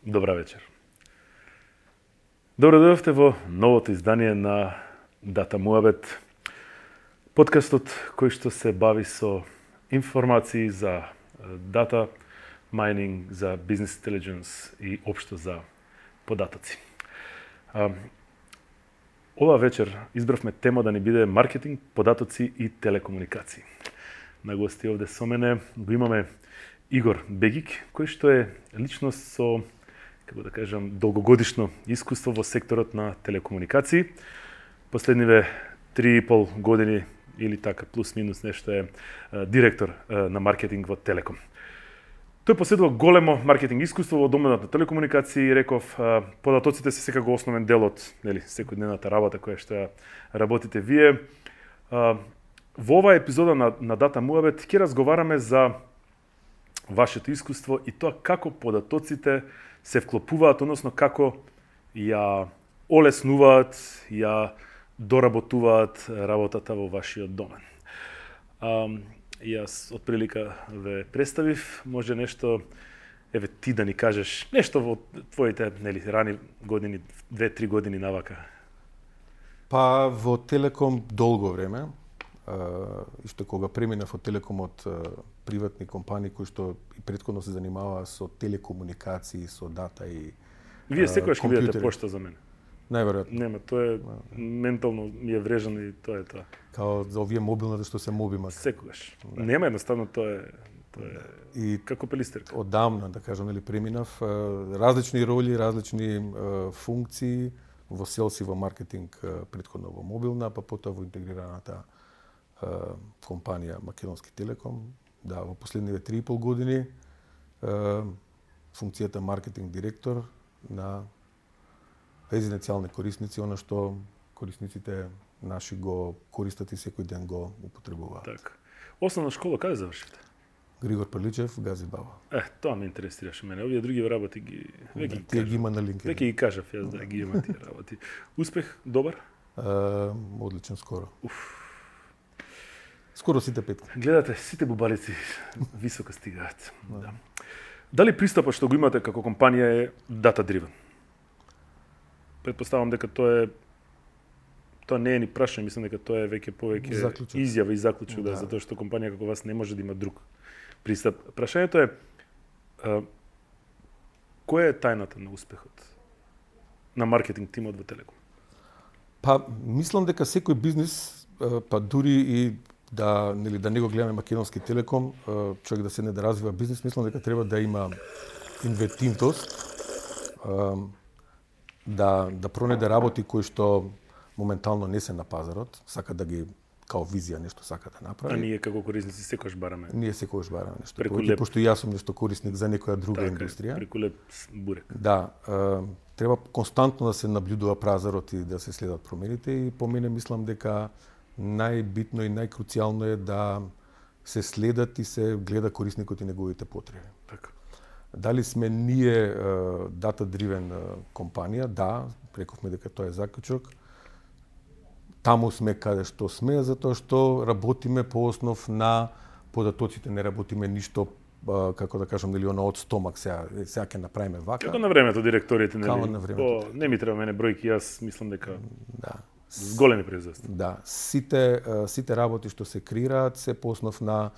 Добра вечер. Добро дојдовте во новото издание на Дата Муабет, подкастот кој што се бави со информации за дата майнинг, за бизнес интелидженс и општо за податоци. Ова вечер избравме тема да ни биде маркетинг, податоци и телекомуникации. На гости овде со мене го имаме Игор Бегик, кој што е личност со, како да кажам, долгогодишно искуство во секторот на телекомуникации. Последниве 3,5 години или така плюс-минус нешто е директор на маркетинг во Телеком. Тој поседува големо маркетинг искуство во доменот на телекомуникации и реков податоците се секако основен дел од секојдневната работа која што работите вие. Во оваа епизода на Дата Муабет ќе разговараме за вашето искуство и тоа како податоците се вклопуваат, односно како ја олеснуваат, ја доработуваат работата во вашиот домен. Јас од прилика ве представив, може нешто, еве ти да ни кажеш нешто во твоите рани години, 2-3 години навака. Па во Телеком долго време, што кога преминав од Телеком од приватни компании кои што и претходно се занимаваа со телекомуникации, со дата и Вие секогаш ќе бидете пошта за мене. Најверојатно. Нема, тоа е ментално ми е врежано и тоа е тоа. Као за овие мобилните што се мобимат. Секогаш. Да. Нема едноставно тоа е и како пелистерка. Одамна, да кажам, преминав различни роли, различни функции во селс и во маркетинг, претходно во мобилна, па потоа во интегрираната компанија Македонски Телеком. Да, во последниве 3,5 години функцијата маркетинг директор на резиденцијални корисници, она што корисниците наши го користат и секој ден го употребуваат. Така. Основна школа каде завршите? Григор Прличев, Гази Баба. Тоа ме интересираше мене. Овие други работи тие ги има на LinkedIn. Веќе ги кажав јас да ги има тие работи. Успех добар? Одличен скоро. Скоро сите петки. Гледате, сите бубалици високо стигаат. Да. Дали пристапот што го имате како компанија е data driven? Предпоставам дека тоа не е ни прашање, мислам дека тоа е повеќе заклучок. Изјава и заклучок, да, затоа што компанија како вас не може да има друг пристап. Прашањето е која е тајната на успехот на маркетинг тимот во Телеком? Па мислам дека секој бизнис, па дури и да не го гледаме Македонски Телеком, човек да седне да развива бизнис, мислам дека треба да има инвентивност, да пронајде работи кои што моментално не се на пазарот, сака да ги као визија нешто сака да направи. А ние како корисници секогаш бараме. Ние секогаш бараме нешто. Пошто јас сум нешто корисник за некоја друга индустрија. Преку леп бурек. Да, треба константно да се наблюдува пазарот и да се следат промените и по мене мислам дека најбитно и најкруцијално е да се следат и се гледа корисникот и неговите потреби. Така. Дали сме ние data-driven компанија? Да, рековме дека тоа е заклучок. Таму сме каде што сме, затоа што работиме по основ на податоците, не работиме ништо како да кажам, нели од стомак сега ќе направиме вака. Како на времето директорите, нели? Како на времето. Не ми треба мене бројки, јас мислам дека да. С големи производства. Да, сите работи што се креираат се по основ на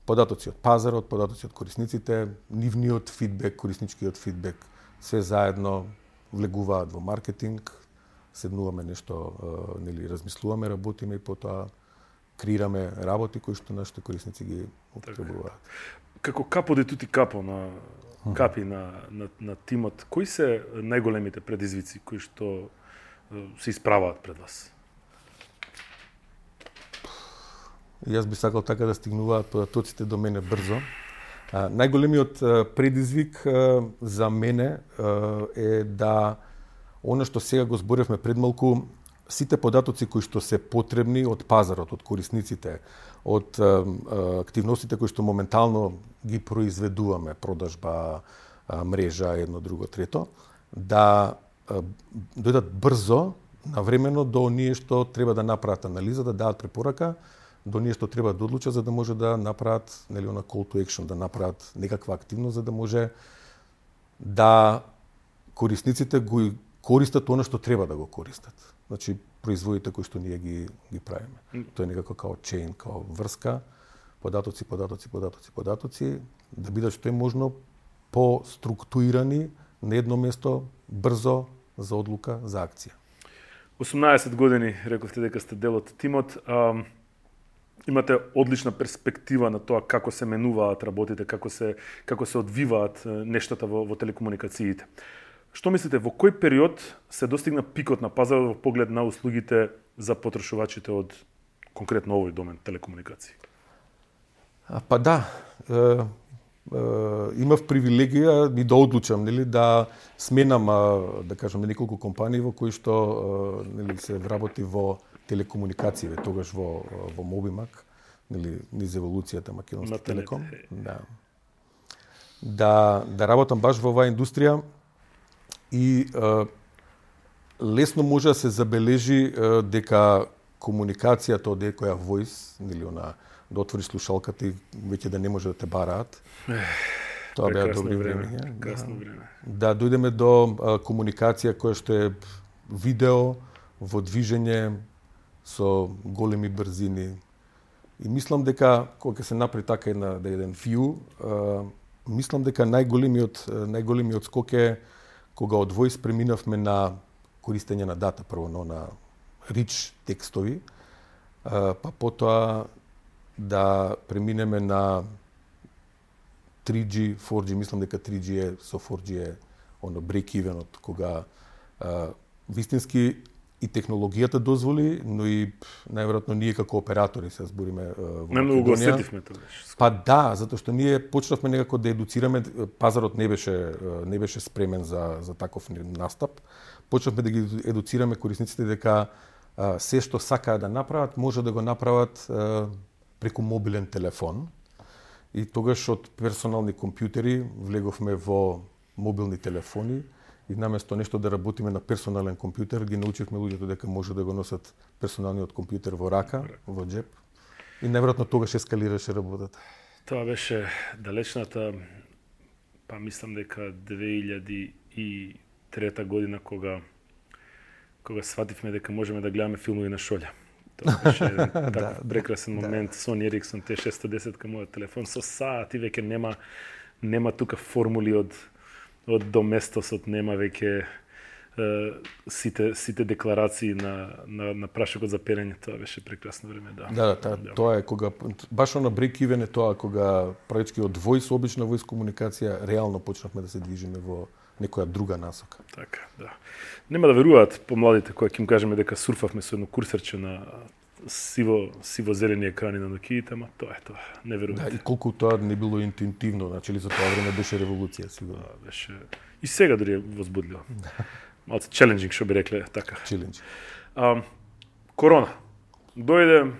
податоци од пазарот, податоци од корисниците, нивниот фидбек, корисничкиот фидбек, све заедно влегуваат во маркетинг, седнуваме нешто, размислуваме, работиме и потоа креираме работи кои што нашите корисници ги употребуваат. Како капо де тути капо на капи на тимот, кои се најголемите предизвици кои што се исправаат пред вас? Јас би сакал така да стигнуваат податоците до мене брзо. Најголемиот предизвик за мене е да она што сега го зборевме пред малку, сите податоци кои што се потребни од пазарот, од корисниците, од активностите кои што моментално ги произведуваме, продажба, мрежа, едно, друго, трето, да дојдат брзо, навремено до оние што треба да направат анализа, да дадат препорака, до оние што треба да одлучат за да може да направат, нели, она call to action, да направат некаква активност за да може да корисниците го користат она што треба да го користат. Значи, производите кои што ние ги правиме. Тоа е некако као чейн, као врска, податоци, да бидат што е можно по-структурирани на едно место, брзо, за одлука, за акција. 18 години, рековте дека сте дел од тимот. Имате одлична перспектива на тоа како се менуваат работите, како се одвиваат нештата во телекомуникациите. Што мислите, во кој период се достигна пикот на пазарот во поглед на услугите за потрошувачите од конкретно овој домен, телекомуникации? Па да, имав привилегија и да одлучам, нели, да сменам, да кажеме, неколку компании во кои што нели се вработи во телекомуникации, тогаш во Мобимак, нели, низ еволуцијата Македонски Телеком. Да работам баш во оваа индустрија и лесно може да се забележи дека комуникацијата од екоја voice, нели, она да отвориш слушалката и веќе да не може да те бараат. Тоа беа добри време. Да дојдеме до комуникација која што е видео во движење со големи брзини. И мислам дека кога ќе се направи така еден view, мислам дека најголемиот скок е кога од voice преминавме на користење на дата, прво на rich текстови, па потоа да преминеме на 3G, 4G, мислам дека 3G е, со 4G е оно break-evenот, кога вистински и технологијата дозволи, но и најверојатно ние како оператори се збориме во Македонија. Многу го осетивме тоа. Па да, затоа што ние почнавме некако да едуцираме, пазарот не беше спремен за таков настап. Почнавме да ги едуцираме корисниците дека се што сакаат да направат, може да го направат преку мобилен телефон. И тогаш од персонални компјутери влеговме во мобилни телефони и наместо нешто да работиме на персонален компјутер, ги научивме луѓето дека може да го носат персоналниот компјутер во рака, во џеп. И најверојатно тогаш ескалираше работата. Тоа беше далечната, па мислам дека 2003 година кога свативме дека можеме да гледаме филмови на шолја. Тоа беше таков прекрасен момент. Sony Ericsson T610 кај мојот телефон со саат и веќе нема тука формули од доместосот, нема веќе сите декларации на прашокот за перење. Тоа беше прекрасно време, да. Да, тоа е кога баш на break-even е тоа кога практички од voice, обична voice комуникација, реално почнавме да се движиме во некоја друга насока. Така, да. Нема да веруваат помладите кога ќе им кажеме дека сурфавме со едно курсерче на сиво-зелени екрани на Nokia, ама тоа е тоа. Не веруваат. Да, и колку тоа не било интуитивно, значи ли за тоа време беше револуција, сигурно. Да, беше и сега дури е возбудливо. Малце челенџинг, што би рекле така. Челенџинг. Корона. Дојде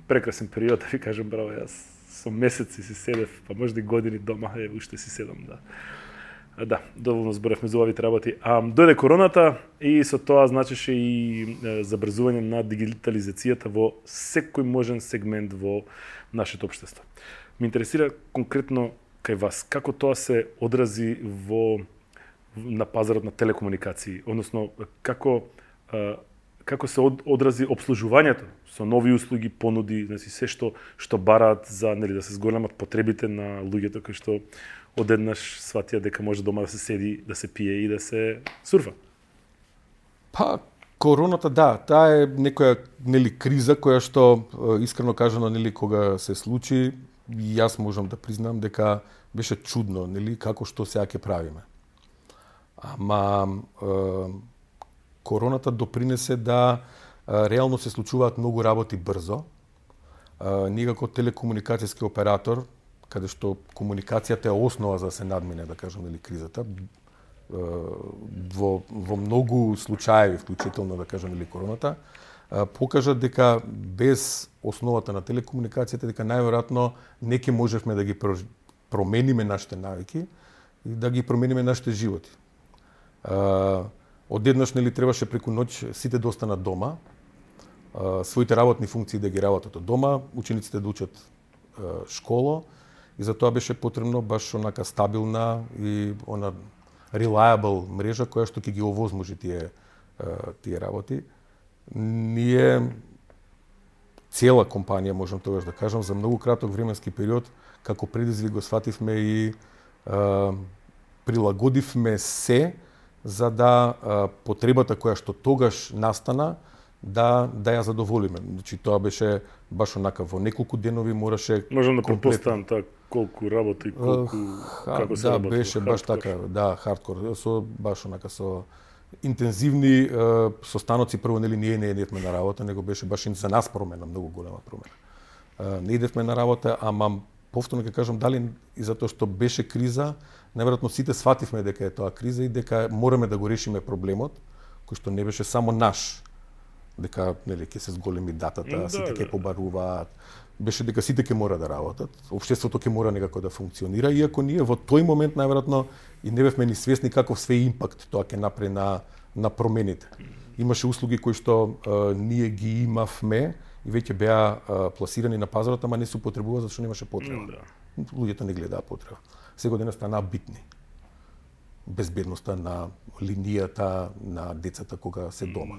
прекрасен период, да ви кажам, браво, јас со месеци си седев, па можда и години дома, уште си седам, да. Да, доволно зборевме за овие работи. Дојде короната и со тоа значеше и забрзување на дигитализацијата во секој можен сегмент во нашето општество. Ме интересира конкретно кај вас, како тоа се одрази на пазарот на телекомуникации, односно како се одрази обслужувањето со нови услуги, понуди, значи се што бараат за, нели, да се зголемат потребите на луѓето кои што одеднаш сватија дека може дома да се седи, да се пие и да се сурфа. Па короната, да, таа е некоја, нели, криза која што искрено кажано, нели, кога се случи, јас можам да признам дека беше чудно, нели, како што сега ќе правиме. Ама короната допринесе да реално се случуваат многу работи брзо. Ние како телекомуникацијски оператор, каде што комуникацијата е основа за да се надмине, да кажам, нели, кризата, во многу случаи, вклучително, да кажам, нели, короната, покажа дека без основата на телекомуникацијата, дека најверојатно не ќе можевме да ги промениме нашите навики и да ги промениме нашите животи. Одеднаш, нели, требаше преку ноќ сите да останат дома, своите работни функции да ги работат од дома, учениците да учат школо, и за тоа беше потребно баш онака стабилна и она reliable мрежа која што ќе ги овозможи тие работи. Ние цела компанија, можам тогаш да кажам, за многу краток временски период, како предизвик го свативме и прилагодивме се за да потребата која што тогаш настана да ја задоволиме. Значи тоа беше баш онака во неколку денови мораше. Можам да претпоставам колку работи, како се работи. Да, беше баш така, да, хардкор, баш онака со интензивни состаноци. Прво ние не идевме на работа, него беше баш за нас промена, многу голема промена. Не идевме на работа, ама повторно ќе кажам, дали и затоа што беше криза, најверојатно сите свативме дека е тоа криза и дека мораме да го решиме проблемот, кој што не беше само наш, дека нели ќе се зголеми датата, сите ќе побаруваат, беше дека сите ќе мора да работат, општеството ќе мора некако да функционира, иако ние во тој момент најверојатно и не бевме ни свесни каков све импакт тоа ќе направи на промените. Имаше услуги кои што ние ги имавме и веќе беа пласирани на пазарот, ама не се употребува зашто немаше потреба. Луѓето не гледаа потреба. Сега денес станаа битни. Безбедноста на линијата на децата кога се дома.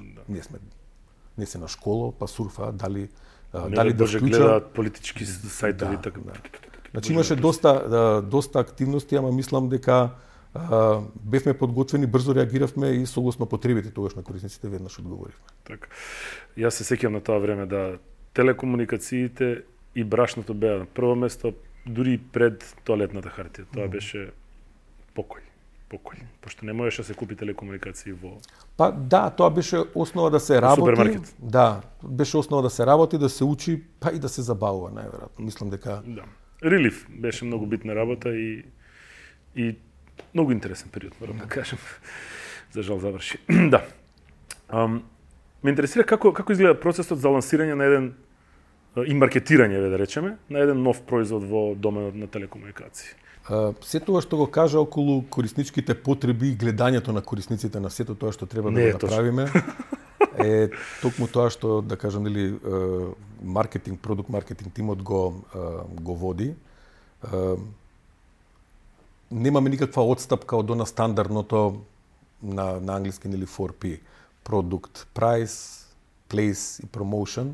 Не се на школа, па сурфаат, дали да вклучат, гледаат политички сајтови, така. Значи имаше доста активности, ама мислам дека бевме подготвени, брзо реагиравме и согласно потребите тогаш на корисниците веднаш одговоривме. Така. Јас се сеќавам на тоа време да телекомуникациите и брашното беа на прво место, дури пред тоалетната хартија. Тоа беше покој. Пошто не можеше да се купи телекомуникации во. Па да, тоа беше основа да се работи. Супермаркет. Да, беше основа да се работи, да се учи, па и да се забавува најверојатно. Мислам дека да. Релиф беше многу битна работа и многу интересен период, морам да кажам. За жал заврши. Да. Ме интересира како изгледа процесот за лансирање на еден и маркетирање, да речеме, на еден нов производ во доменот на телекомуникации. Се тоа што го кажа околу корисничките потреби и гледањето на корисниците на сето тоа што треба да го направиме е токму тоа што, да кажам, нели продукт маркетинг тимот го води. Немаме никаква отстапка од она стандардното на англиски нели 4P. Продукт, price, place и promotion.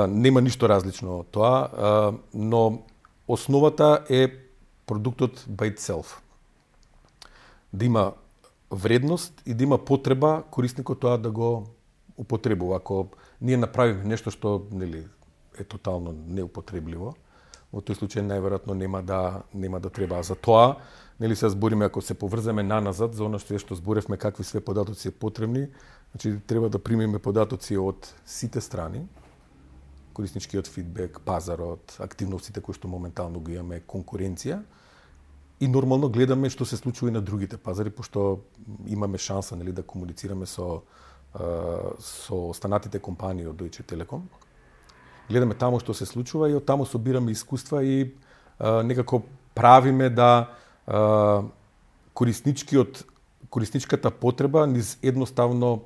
Нема ништо различно од тоа, но основата е продуктот by itself. Да има вредност и да има потреба корисникот тоа да го употребува. Ако ние направиме нешто што нели е тотално неупотребливо, во тој случај најверојатно нема да треба. За тоа, нели се збориме, ако се поврземе наназад за она што зборевме какви све податоци се потребни, значи треба да примеме податоци од сите страни, корисничкиот фидбек, пазарот, активностите кои што моментално ги имаме, конкуренција, и нормално гледаме што се случува и на другите пазари, пошто имаме шанса нели да комуницираме со останатите компании од Deutsche Telekom. Гледаме таму што се случува и од таму собираме искуства и некако правиме да корисничката потреба низ едноставно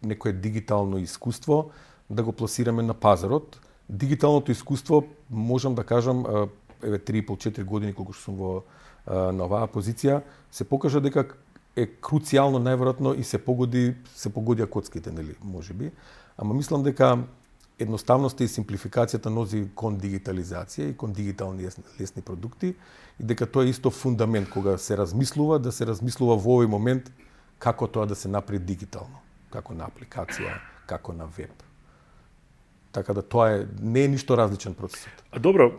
некое дигитално искуство да го пласираме на пазарот. Дигиталното искуство, можам да кажам, 3,5-4 години колку што сум на оваа позиција, се покажа дека е круцијално најверојатно и се погодија коцките, нели, можеби. Ама мислам дека едноставноста и симплификацијата носи кон дигитализација и кон дигитални лесни продукти и дека тоа е исто фундамент кога се размислува, да се размислува во овој момент како тоа да се направи дигитално, како на апликација, како на веб. Така да тоа не е ништо различен процесот. А добро,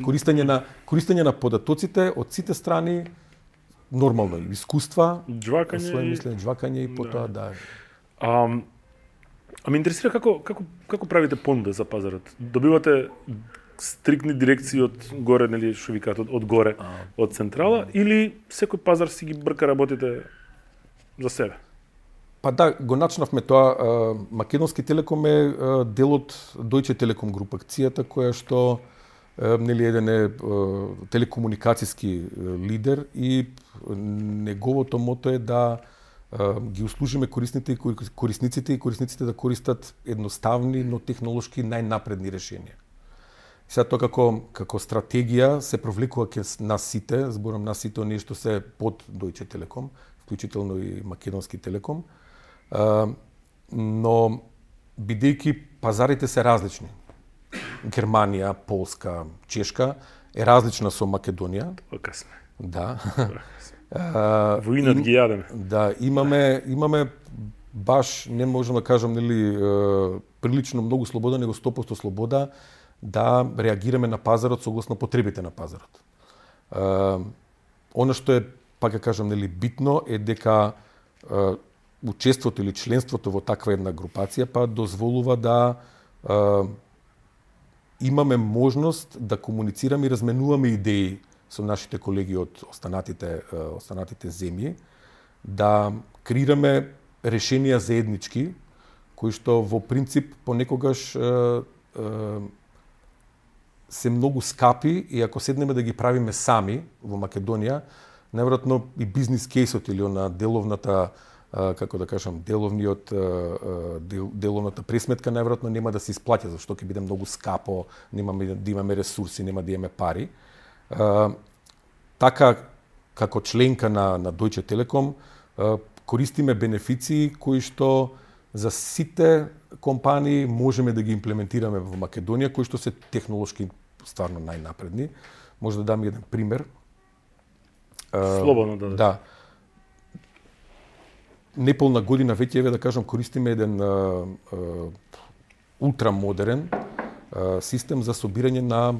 користење на податоците од сите страни, нормално искуства, џвакање и потоа да. А ме интересира како правите понуда за пазарот. Добивате стрикни дирекции од горе, нели што викаат од горе, од централа, или секој пазар си ги брка работите за себе? Па да, го начнавме тоа. Македонски Телеком е дел од Deutsche Telekom Group акцијата, која што нели еден е телекомуникацијски лидер и неговото мото е да ги услужиме корисниците да користат едноставни, но технолошки најнапредни решенија. Сега тоа како стратегија се провлекува ке нас сите, зборам нас сите, оние што се под Deutsche Telekom, вклучително и Македонски Телеком. Но бидејќи пазарите се различни. Германија, Полска, Чешка е различна со Македонија. Така сме. Да. Воинат ги јадеме. Да, имаме баш, не можам да кажам, прилично многу слобода, него 100% слобода да реагираме на пазарот согласно потребите на пазарот. Она што е, пак ја кажам, битно е дека учеството или членството во таква една групација па дозволува да имаме можност да комуницираме и разменуваме идеи со нашите колеги од останатите земји, да креираме решенија заеднички, кои што во принцип понекогаш се многу скапи и ако седнеме да ги правиме сами во Македонија, најверојатно и бизнис кейсот или на деловната деловната пресметка најверојатно нема да се исплаќа, зашто ќе биде многу скапо, нема да имаме ресурси, нема да имаме пари. Така, како членка на Deutsche Telekom, користиме бенефиции кои што за сите компании можеме да ги имплементираме во Македонија, кои што се технолошки стварно најнапредни. Може да дам еден пример. Слободно да. Да. Неполна година веќе да кажам користиме еден ултрамодерен систем за собирање на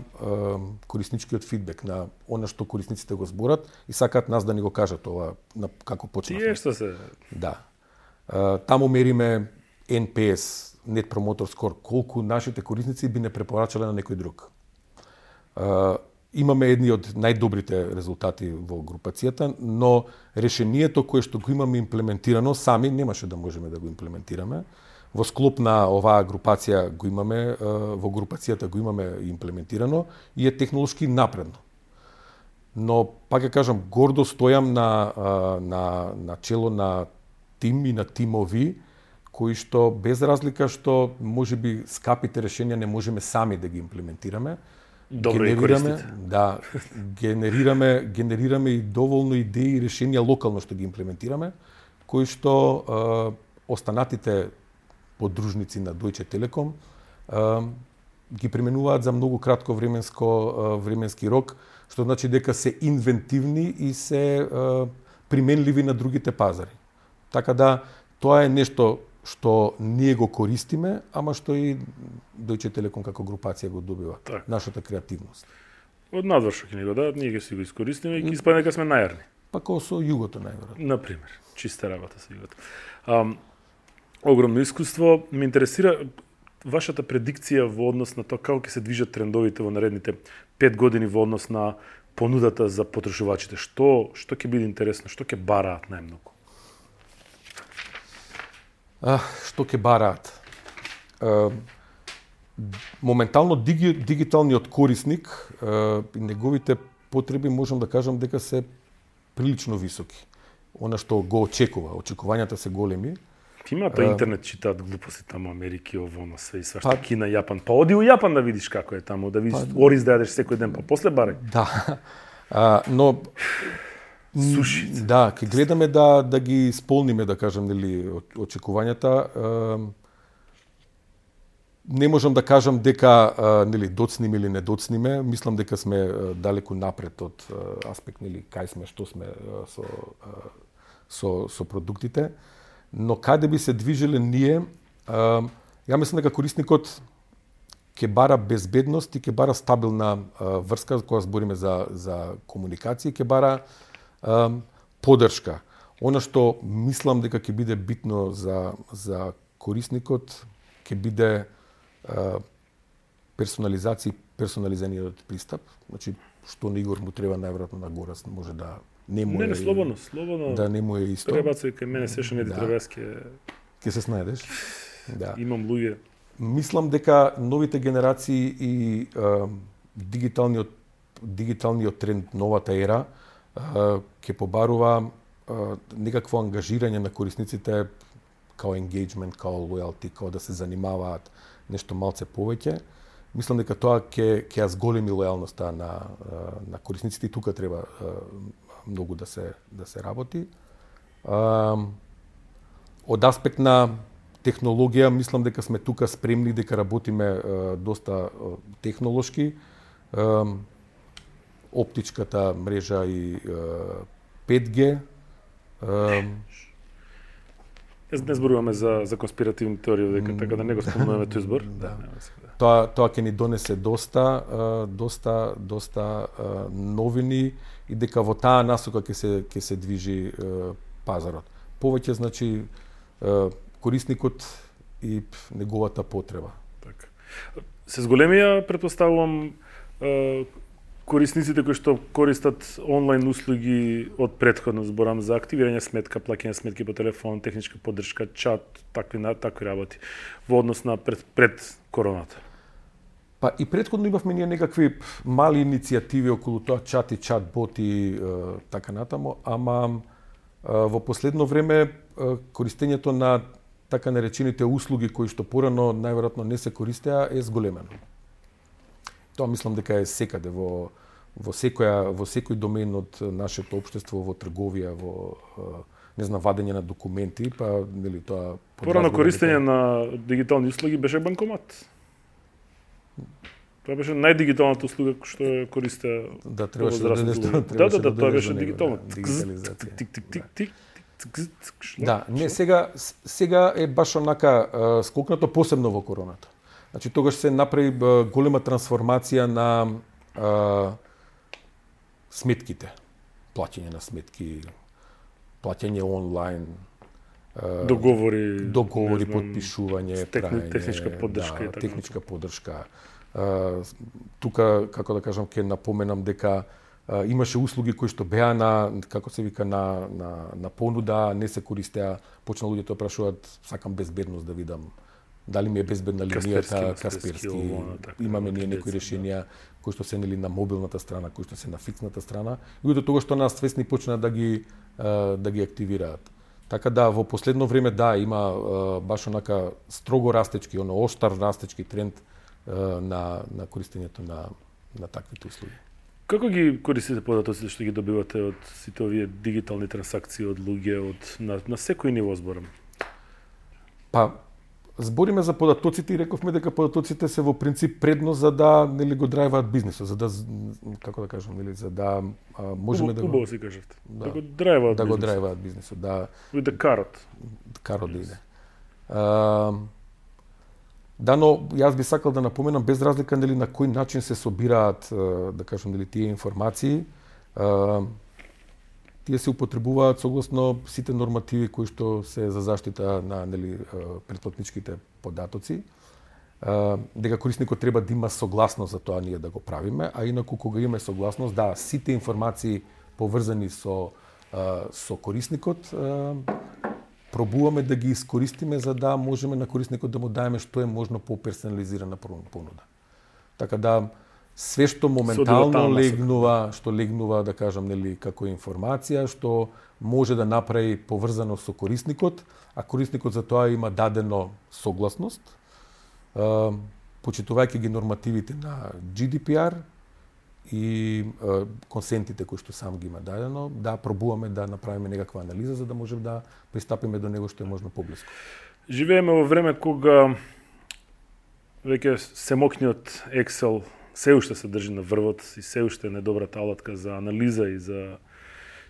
корисничкиот фидбек, на она што корисниците го зборат и сакаат нас да ни го кажат ова како почнавме. Тие што се? Да. Таму мериме NPS, Net Promoter Score, колку нашите корисници би не препорачале на некој друг. Имаме едни од најдобрите резултати во групацијата, но решението кое што го имаме имплементирано, сами немаше да можеме да го имплементираме. Во склоп на оваа групација го имаме, во групацијата го имаме имплементирано и е технолошки напредно. Но, пак ја кажам, гордо стојам на чело на тим и на тимови, кои што без разлика што можеби скапите решенија не можеме сами да ги имплементираме, добро и користите. Да, генерираме и доволно идеи и решенија локално што ги имплементираме, кои што останатите подружници на Deutsche Telekom ги применуваат за многу кратко временски рок, што значи дека се инвентивни и се применливи на другите пазари. Така да, тоа е нешто што ние го користиме, ама што и Deutsche Telekom како групација го добива. Так. Нашата креативност. Од надвор ќе ни го дадат, ние ќе си го искористиме и ќе испадне дека сме најарни. Па како со југото најверојатно. Например, чиста работа со југото. Огромно искуство. Ме интересира вашата предикција во однос на тоа како ќе се движат трендовите во наредните 5 години во однос на понудата за потрошувачите. Што ќе биде интересно, што ќе бараат најмногу? Што ќе бараат? Моментално дигиталниот корисник и неговите потреби можам да кажам дека се прилично високи. Она што го очекувањата се големи. Имате интернет читаат глупости таму Америки, ово, на све и свашта, Кина, Јапан. Па оди у Јапан да видиш како е таму, да видиш ориз да јадеш секој ден, па после барај. Да. Но суши. Да, ќе гледаме да ги исполниме, да кажам, очекувањата. Не можам да кажам дека доцниме или не доцниме. Мислам дека сме далеку напред од аспект кај сме, што сме со продуктите. Но каде би се движеле ние, ја мислам дека корисникот ќе бара безбедност и ќе бара стабилна врска, кога збориме за комуникација, ќе бара поддршка. Она што мислам дека ќе биде битно за корисникот, ќе биде персонализираниот пристап. Значи, што на Игор му треба најверојатно на гора, може да не му е... слободно. Да не му е исто. Пребацај кај мене сеше неди требеске. Ке се снајдеш. Да. Имам луѓе. Мислам дека новите генерации и дигиталниот тренд, новата ера, ќе побарува некакво ангажирање на корисниците као engagement, као loyalty, као да се занимаваат нешто малце повеќе. мислам дека тоа ќе ја зголеми лојалноста на корисниците и тука треба многу да се работи. Од аспект на технологија, мислам дека сме тука спремни, дека работиме доста технолошки. Оптичката мрежа и 5G. Не зборуваме за конспиративни теории, дека така да не го спомнуваме тој збор. Да. Тоа ќе ни донесе доста новини и дека во таа насока ќе се движи пазарот. Повеќе значи корисникот и неговата потреба. Така. Се зголемија, претпоставувам, корисниците кои што користат онлайн услуги од претходно, зборам за активирање сметка, плаќање сметки по телефон, техничка поддршка, чат, такви работи во однос на пред короната. Па и претходно имавме ние некакви мали иницијативи околу тоа, чат и чат-бот и така натаму, ама во последно време користењето на така наречените услуги кои што порано најверојатно не се користеа е зголемено. Тоа мислам дека е секаде во секој домен од нашето општество, во трговија, во вадење на документи, па нели тоа порано користење на дигитални услуги беше банкомат. Тоа беше најдигиталната услуга што ја користеа. Да, требаше да тоа беше дигитално. Да, не, сега е баш онака скокнато, посебно во короната. Значи тогаш се направи голема трансформација на сметките, плаќање на сметки, плаќање онлайн, договори, подпишување, техничка поддршка и така. Техничка поддршка. Тука, како да кажам, ќе напоменам дека имаше услуги кои што беа на понуда, не се користеа, почна луѓето да прашуваат, сакам безбедност да видам дали ми е безбедна линијата, Касперски. Имаме ние некои решенија кои што се нели на мобилната страна, кои што се на фиксната страна, и од тоа што нас свесни почна да ги активираат. Така да во последно време има баш онака строго растечки, оштар растечки тренд на користењето на таквите услуги. Како ги користите податоците што ги добивате од сите овие дигитални трансакции од луѓе, на секој ниво зборам? Па, збориме за податоците и рековме дека податоците се во принцип предност за да нели го драйваат бизнисот, за да, како да кажам, нели, за да можеме да го си кажете. Да го драйваат бизнисот, да карот да иде. Да, но јас би сакал да напоменам без разлика нели на кој начин се собираат, да кажам, нели тие информации, тие се употребуваат согласно сите нормативи кои што се за заштита на нели претплатничките податоци. Дека корисникот треба да има согласност за тоа ние да го правиме, а инаку кога имаме согласност, сите информации поврзани со корисникот пробуваме да ги искористиме за да можеме на корисникот да му даеме што е можно по-персонализирана понуда. Така да све што моментално легнува, да кажам, нели, како информација, што може да направи поврзано со корисникот, а корисникот за тоа има дадено согласност, почитувајќи ги нормативите на GDPR и консентите кои што сам ги има дадено, пробуваме да направиме некаква анализа за да можеме да пристапиме до него што е можно поблиску. Живееме во време кога веќе семокниот Excel се уште се држи на врвот и се уште е недобрата алатка за анализа и за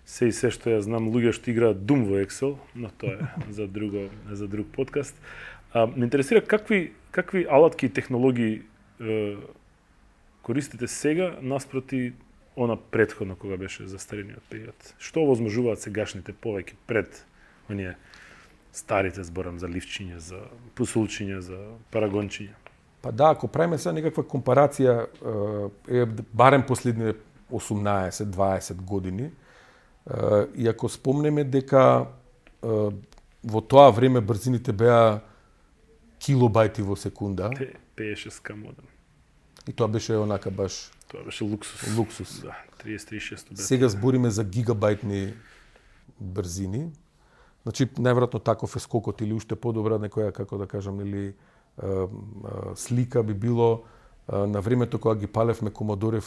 се што ја знам луѓе што играат Doom во Excel, но тоа е за друг подкаст. Ме интересира какви алатки и технологии користите сега наспроти она претходно кога беше застарениот период. Што овозможуваат сегашните повеќе пред оние старите, зборам за ливчиња, за пусулчиња, за парагончиња? Па ако правиме сега некаква компарација, барем последните 18-20 години, и ако спомнеме дека во тоа време брзините беа килобајти во секунда. 56 модем. И тоа беше онака баш... Тоа беше луксус. Да, 36 бе. Сега збориме за гигабајтни брзини. Значи, најверојатно таков е скокот или уште подобра некоја, како да кажам, или слика би било на времето кога ги палевме Commodore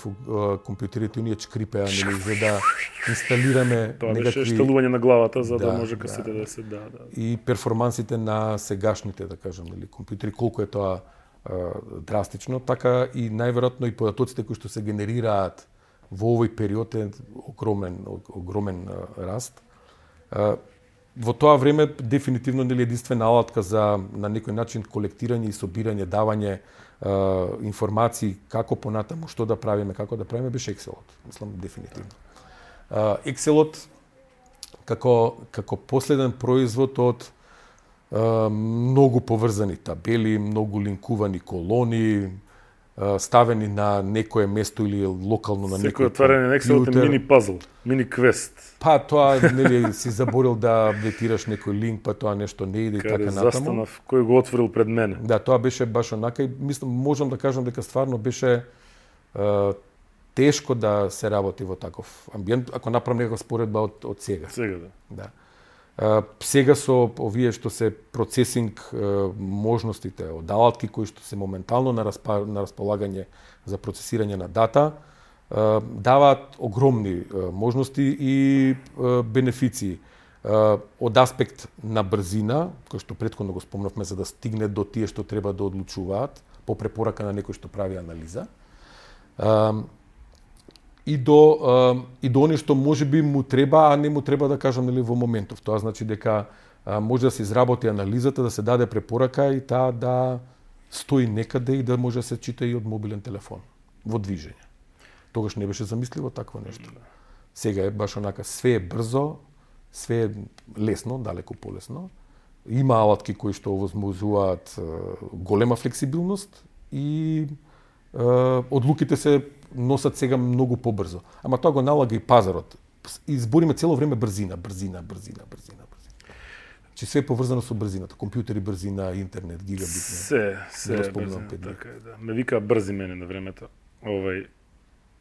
компјутерите, оние чкрипеа, нели, за да инсталираме Тоа некакви... беше штелување на главата, за да може касете да се... И перформансите на сегашните, да кажам, нели, компјутери, колку е тоа драстично, така и најверојатно и податоците кои што се генерираат во овој период е огромен раст. Во тоа време дефинитивно нели единствена алатка за на некој начин колектирање и собирање, давање информации како понатаму, што да правиме, како да правиме, беше Excelот. Мислам дефинитивно. Excelот како последен производ од многу поврзани табели, многу линкувани колони, ставени на некое место или локално на некој компјутер. Секој отварање на Excelот е мини пазл, мини квест. Па тоа нели си заборил да аплетираш некој линк, па тоа нешто не иде и така натаму. Застанав, кој го отворил пред мене. Да, тоа беше баш онака и мислам можам да кажам дека стварно беше тешко да се работи во таков амбиент, ако направам некаква споредба од сега. Сега да. Сега со овие што се процесинг можностите од алатки кои што се моментално на располагање за процесирање на дата, даваат огромни можности и бенефиции. Од аспект на брзина, кој што претходно го спомнавме, за да стигне до тие што треба да одлучуваат по препорака на некој што прави анализа. И до они што можеби му треба, а не му треба, да кажам, нели, во моментов. Тоа значи дека може да се изработи анализата, да се даде препорака и таа да стои некаде и да може да се чита и од мобилен телефон во движење. Тогаш не беше замисливо такво нешто. Сега е баш онака, све е брзо, све е лесно, далеку полесно. Има алатки кои што овозможуваат голема флексибилност и одлуките се носат сега многу побрзо. Ама тоа го налага и пазарот. Избориме цело време брзина. Че све е поврзано со брзината. Компјутери брзина, интернет, гигабитни. Се брзина, така е, да. Ме вика брзи мене на времето.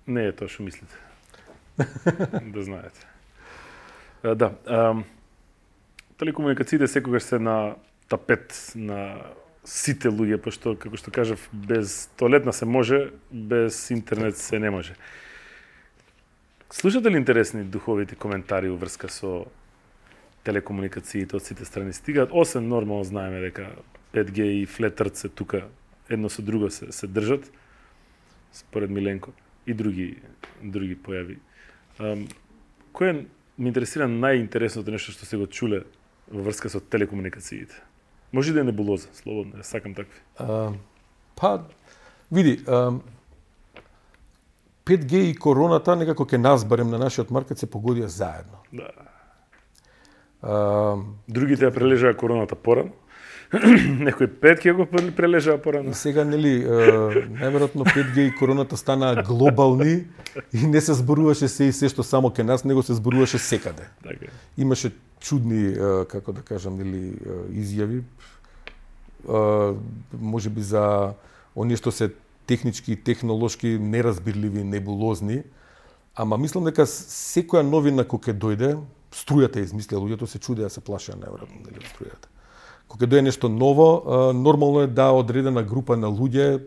Не е тоа што мислите. Да знаете. Да. Телекомуникациите секогаш се на тапет на сите луѓе, пошто, како што кажав, без тоалетна се може, без интернет се не може. Слушате ли интересни духовити коментари во врска со телекомуникациите од сите страни? Стигаат, освен нормално знаеме дека 5G и флетърт се тука едно со друго се држат, според Миленко, и други појави. Кој ме интересира најинтересното нешто што се го чуле во врска со телекомуникациите? Може да е небулоза, слободно, ја сакам такви. Види, 5G и короната некако ке нас, барем на нашиот маркет, се погодија заедно. Да. Другите ја прележаа короната порано. Некој 5G го прележаа порано. И сега, нели, најверојатно 5G и короната станаа глобални и не се зборуваше се и се што само ке нас, него се зборуваше секаде. Така. Имаше чудни, како да кажам, нели, изјави, можеби за оние што се технички и технолошки неразбирливи, небулозни, ама мислам дека секоја новина кој ќе дојде, струјата измислија, луѓето се чудеа, се плашеа најверојатно, нели, струјата. Кога дојде нешто ново, нормално е да одредена група на луѓе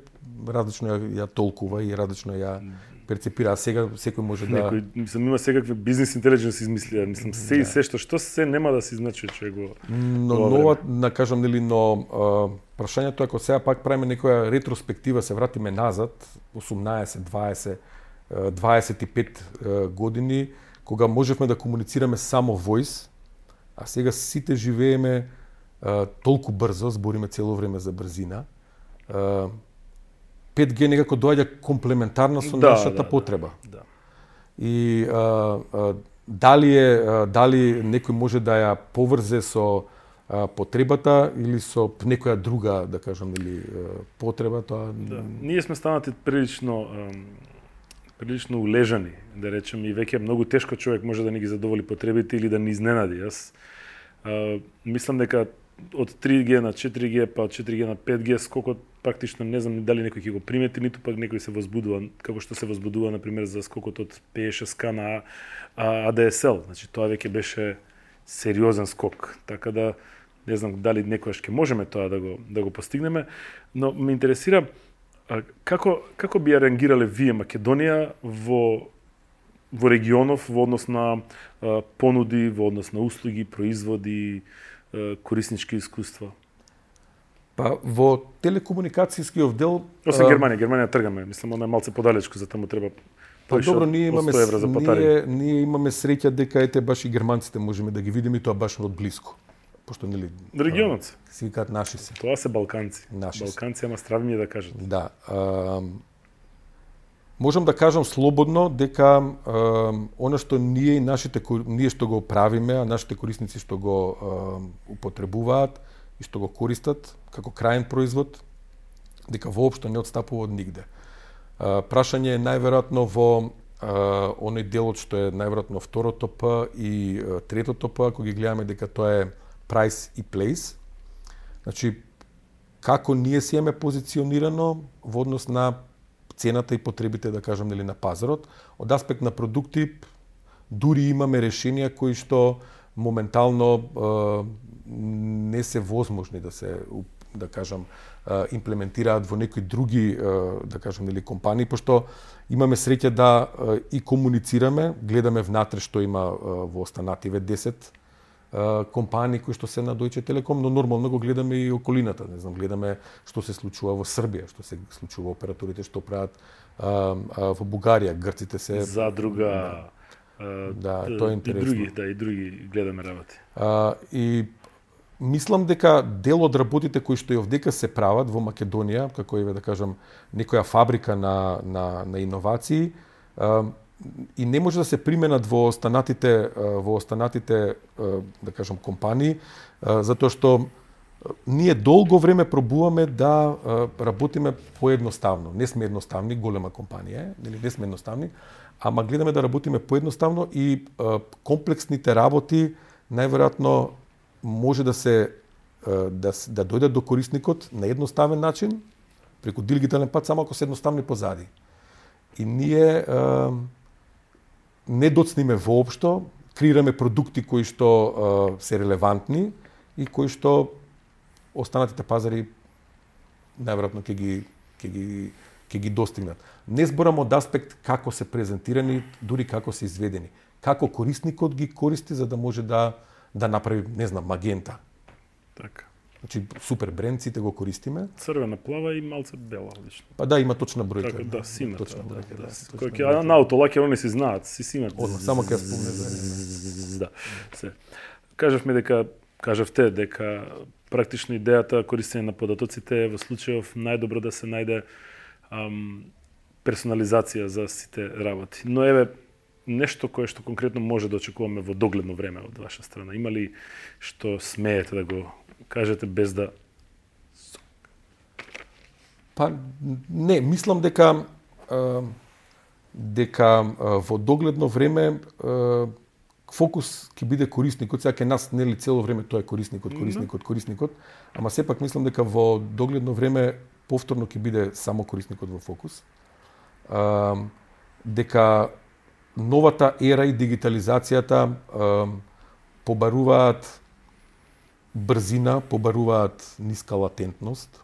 различно ја толкува и различно ја перцепира, а сега секој може да... Мислам, има секакви бизнес интелидженс измислија, мислам, се и се што се нема да се изначи човек го... Но нова, да кажам, нели, но прашањето е, ако сега пак правиме некоја ретроспектива, се вратиме назад, 18, 20, 25 години, кога можевме да комуницираме само voice, а сега сите живееме толку брзо, збориме цело време за брзина, 5G некако доаѓа комплементарна со нашата потреба. Да. И дали некој може да ја поврзе со потребата или со некоја друга, да кажам, или потреба, тоа... Да. Ние сме станати прилично улежани, да речем, и веќе многу тешко човек може да ни ги задоволи потребите или да ни изненади. Јас мислам дека од 3G на 4G, па од 4G на 5G скокот практично не знам дали некој ќе го примети, ниту пак некој се возбудува, како што се возбудува на пример за скокот од P6K на ADSL. Значи тоа веќе беше сериозен скок. Така да не знам дали некогаш ќе можеме тоа да го постигнеме, но ме интересира Како би ја реагирале вие, Македонија, во регионов, во однос на понуди, во однос на услуги, производи, кориснички искуства? Па во телекомуникацијскиот дел Освен Германија тргаме, мислам она е малце подалечко, за таму треба Па добро, ние ние имаме среќа дека ете баш и германците можеме да ги видиме и тоа баш од блиску. Пошто нели регионот си викаат наши се. Тоа се балканци. Наши балканци, ама стравни ми да кажат. Да. Можам да кажам слободно дека она што ние што го правиме, а нашите корисници што го употребуваат и што го користат како крајен производ, дека воопшто не отстапува од нигде. Прашање е најверојатно во оној делот што е најверојатно второто П и третото П, ако ги гледаме дека тоа е price и place. Значи, како ние си имаме позиционирано во однос на цената и потребите, да кажам, нели, на пазарот. Од аспект на продукти, дури имаме решенија кои што моментално не се возможни да се, да кажам, имплементираат во некои други, да кажам, нели, компании, пошто имаме среќа да и комуницираме, гледаме внатре што има во останативе 10 компании кои што се на Deutsche Telekom, но нормално го гледаме и околината, не знам, гледаме што се случува во Србија, што се случува операторите што прават во Бугарија, грците се Задруга, да, тоа е интересно. И други гледаме работи. И мислам дека дел од работите кои што и овдека се прават во Македонија, како да кажам, некоја фабрика на иновации, и не може да се применат во останатите да кажам компании, затоа што ние долго време пробуваме да работиме поедноставно. Не сме едноставни, голема компанија, нели, не сме едноставни, ама гледаме да работиме поедноставно и комплексните работи најверојатно може да се да дојдат до корисникот на едноставен начин, преку дигитален пат, само ако се едноставни позади. И ние не доцниме воопшто, креираме продукти кои што се релевантни и кои што останатите пазари најверојатно ќе ги достигнат. Не зборам од аспект како се презентирани, дури како се изведени. Како корисникот ги користи за да може да направи, не знам, магента. Така. Значи, супер бренд, сите го користиме. Црвена, плава и малце бела, лично. Па да, има точна бројка. Така, да, сина. Точна бројка, да. Кој ќе на аутолакер, они се знаат, си имат. Само ќе спомне за да. Се. Кажавте дека практично идејата користење на податоците е во случајов најдобро да се најде персонализација за сите работи. Но еве нешто кое што конкретно може да очекуваме во догледно време од ваша страна. Има ли што смеете да го кажете без да... Па не, мислам дека во догледно време фокус ќе биде корисникот, сега ке нас нели цело време тоа е корисникот, ама сепак мислам дека во догледно време повторно ќе биде само корисникот во фокус. Дека новата ера и дигитализацијата побаруваат брзина, побаруваат ниска латентност,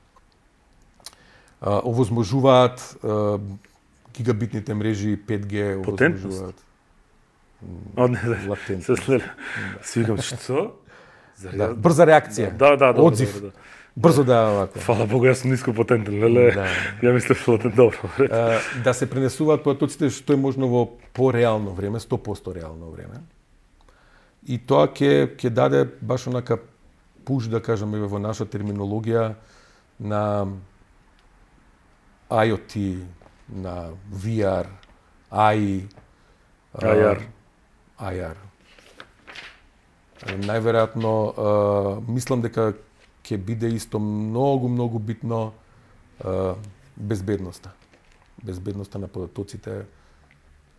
овозможуваат гигабитните мрежи 5G, овозможуваат латентност. Си викам, што? Да, брза реакција. Да, одзив. Да. Брзо да вака. Фала Богу, јас сум ниско потентен, леле. Да. Ја мислев латент добро. Да се пренесуваат податоците што е можно во пореално време, 100% реално време. И тоа ќе даде баш онака пуш, да кажеме во наша терминологија, на IoT, на VR, AI, IR. Најверојатно, мислам дека ќе биде исто многу битно безбедноста. Безбедноста на податоците,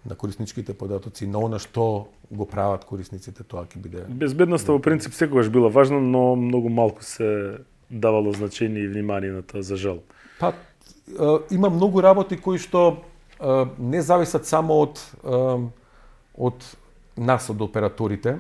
на корисничките податоци, на она што го прават корисниците, тоа ќе биде... Безбедноста во принцип секогаш била важна, но многу малку се давало значење и внимание на тоа, за жал. Па, има многу работи кои што не зависат само од нас, од операторите.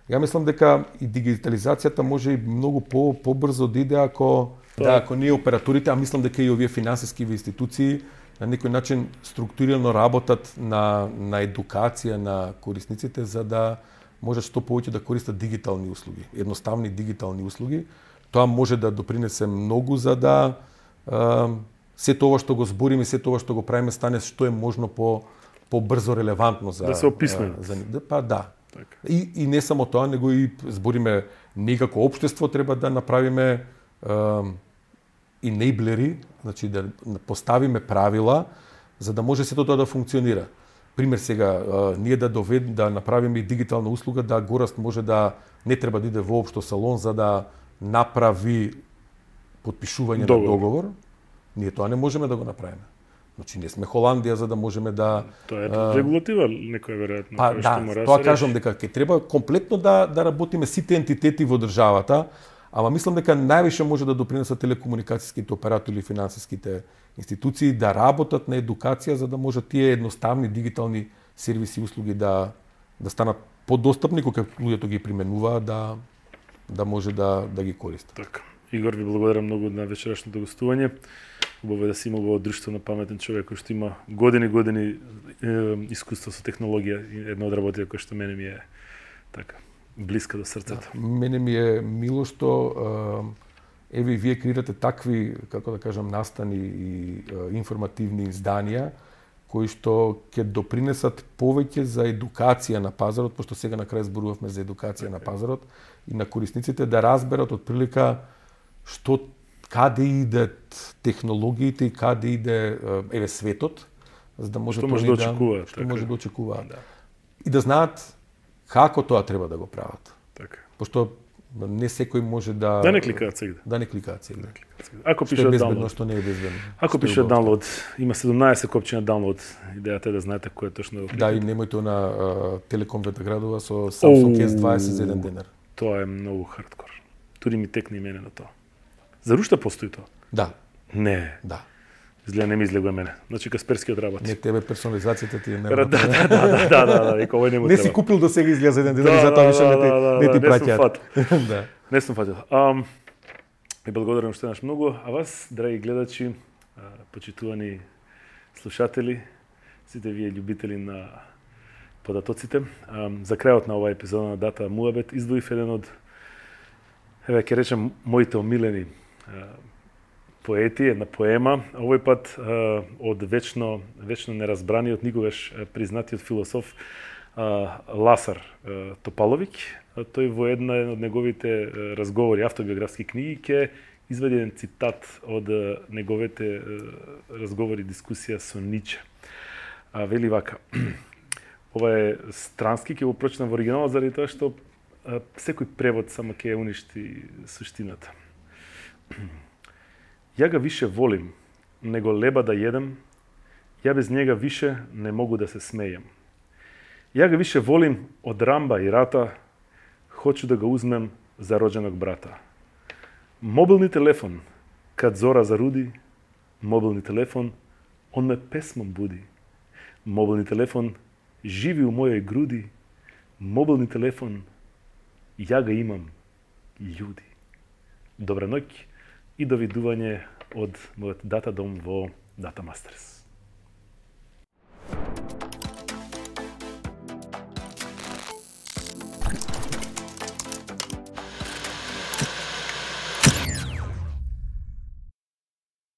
Ја мислам дека и дигитализацијата може и многу побрзо да иде ако Да, ако ние операторите, а мислам дека и овие финансиски институции на некој начин структурирано работат на едукација на корисниците за да може што повеќе да користат дигитални услуги, едноставни дигитални услуги. Тоа може да допринесе многу за да се тоа што го збориме, се тоа што го правиме стане што е можно побрзо релевантно за да се описме. Па да. Така. И не само тоа, него и збориме ние како општество треба да направиме енеблери, значи да поставиме правила за да може сето тоа да функционира. Пример сега, ние да направиме и дигитална услуга, да гораст може да не треба да иде воопшто салон за да направи подпишување на договор. Ние тоа не можеме да го направиме. Значи не сме Холандија за да можеме да Тоа е регулатива некоја веројатно. Па да, тоа кажам дека ќе треба комплетно да работиме сите ентитети во државата, ама мислам дека највише може да допринесат телекомуникацијските оператори и финансиските институции да работат на едукација за да може тие едноставни дигитални сервиси и услуги да станат подостапни кога луѓето ги применуваат да може да ги користат. Така. Игор, ви благодарам многу на вечерашното гостување. Убаво да си имал во друштво на паметен човек кој што има години искуство со технологија и една од работите која што мене ми е така блиска до срцето. Да, мене ми е мило што еве вие креирате такви, како да кажам, настани и информативни изданија кои што ќе допринесат повеќе за едукација на пазарот, пошто сега на крај зборувавме за едукација на пазарот и на корисниците да разберат од прилика што каде идат технологиите и каде иде еве светот, за да може што може да очекуваат, што може да очекуваат. Да. И да знаат како тоа треба да го прават. Така. Пошто не секој може да не кликаат сегде. Да не кликаат сегде. Ако што пише е безбедно, download, што не е безбедно. Ако пише download, има 17 копчи на download. Идејата е да знаете кој е точно. Да, и немојте на Телеком Ветаградова со Samsung S20 за еден денар. Тоа е многу хардкор. Туди ми текне и мене на тоа. За уште постои тоа? Да. Не. Да. Изгледа не ми излегува мене. Значи Касперски одработи. Не, тебе персонализацијата ти е не. Да, и кој не му не треба. си купил до сега изгледа за еден денар и затоа више не ти праќаат. Да. Не сум фатил. И благодарам уште еднаш многу, а вас, драги гледачи, почитувани слушатели, сите вие љубители на податоците, за крајот на оваа епизода на Дата Муабет издвоив еден од, еве ќе речем, моите омилени поети, една поема, овој пат од вечно неразбраниот, никогаш признатиот философ Ласар Топаловик. Тој во една од неговите разговори, автобиографски книги, ќе изведе еден цитат од неговите разговори, дискусија со Ниче. Вели вака: ова е странски, ќе го прочитам во оригиналот заради тоа што секој превод само ќе уништи суштината. Ја га више волим, него леба да једем, ја без njega више не могу да се смејам. Ја га више волим од рамба и рата, хочу да го узмем за роđenog брата. Мобилни телефон, кад зора заруди, мобилни телефон, он ме песмом буди. Мобилни телефон, живи у мојој груди, мобилни телефон, ја га имам, људи. Добра ноќ и довидување од мојот дата дом во Data Masters.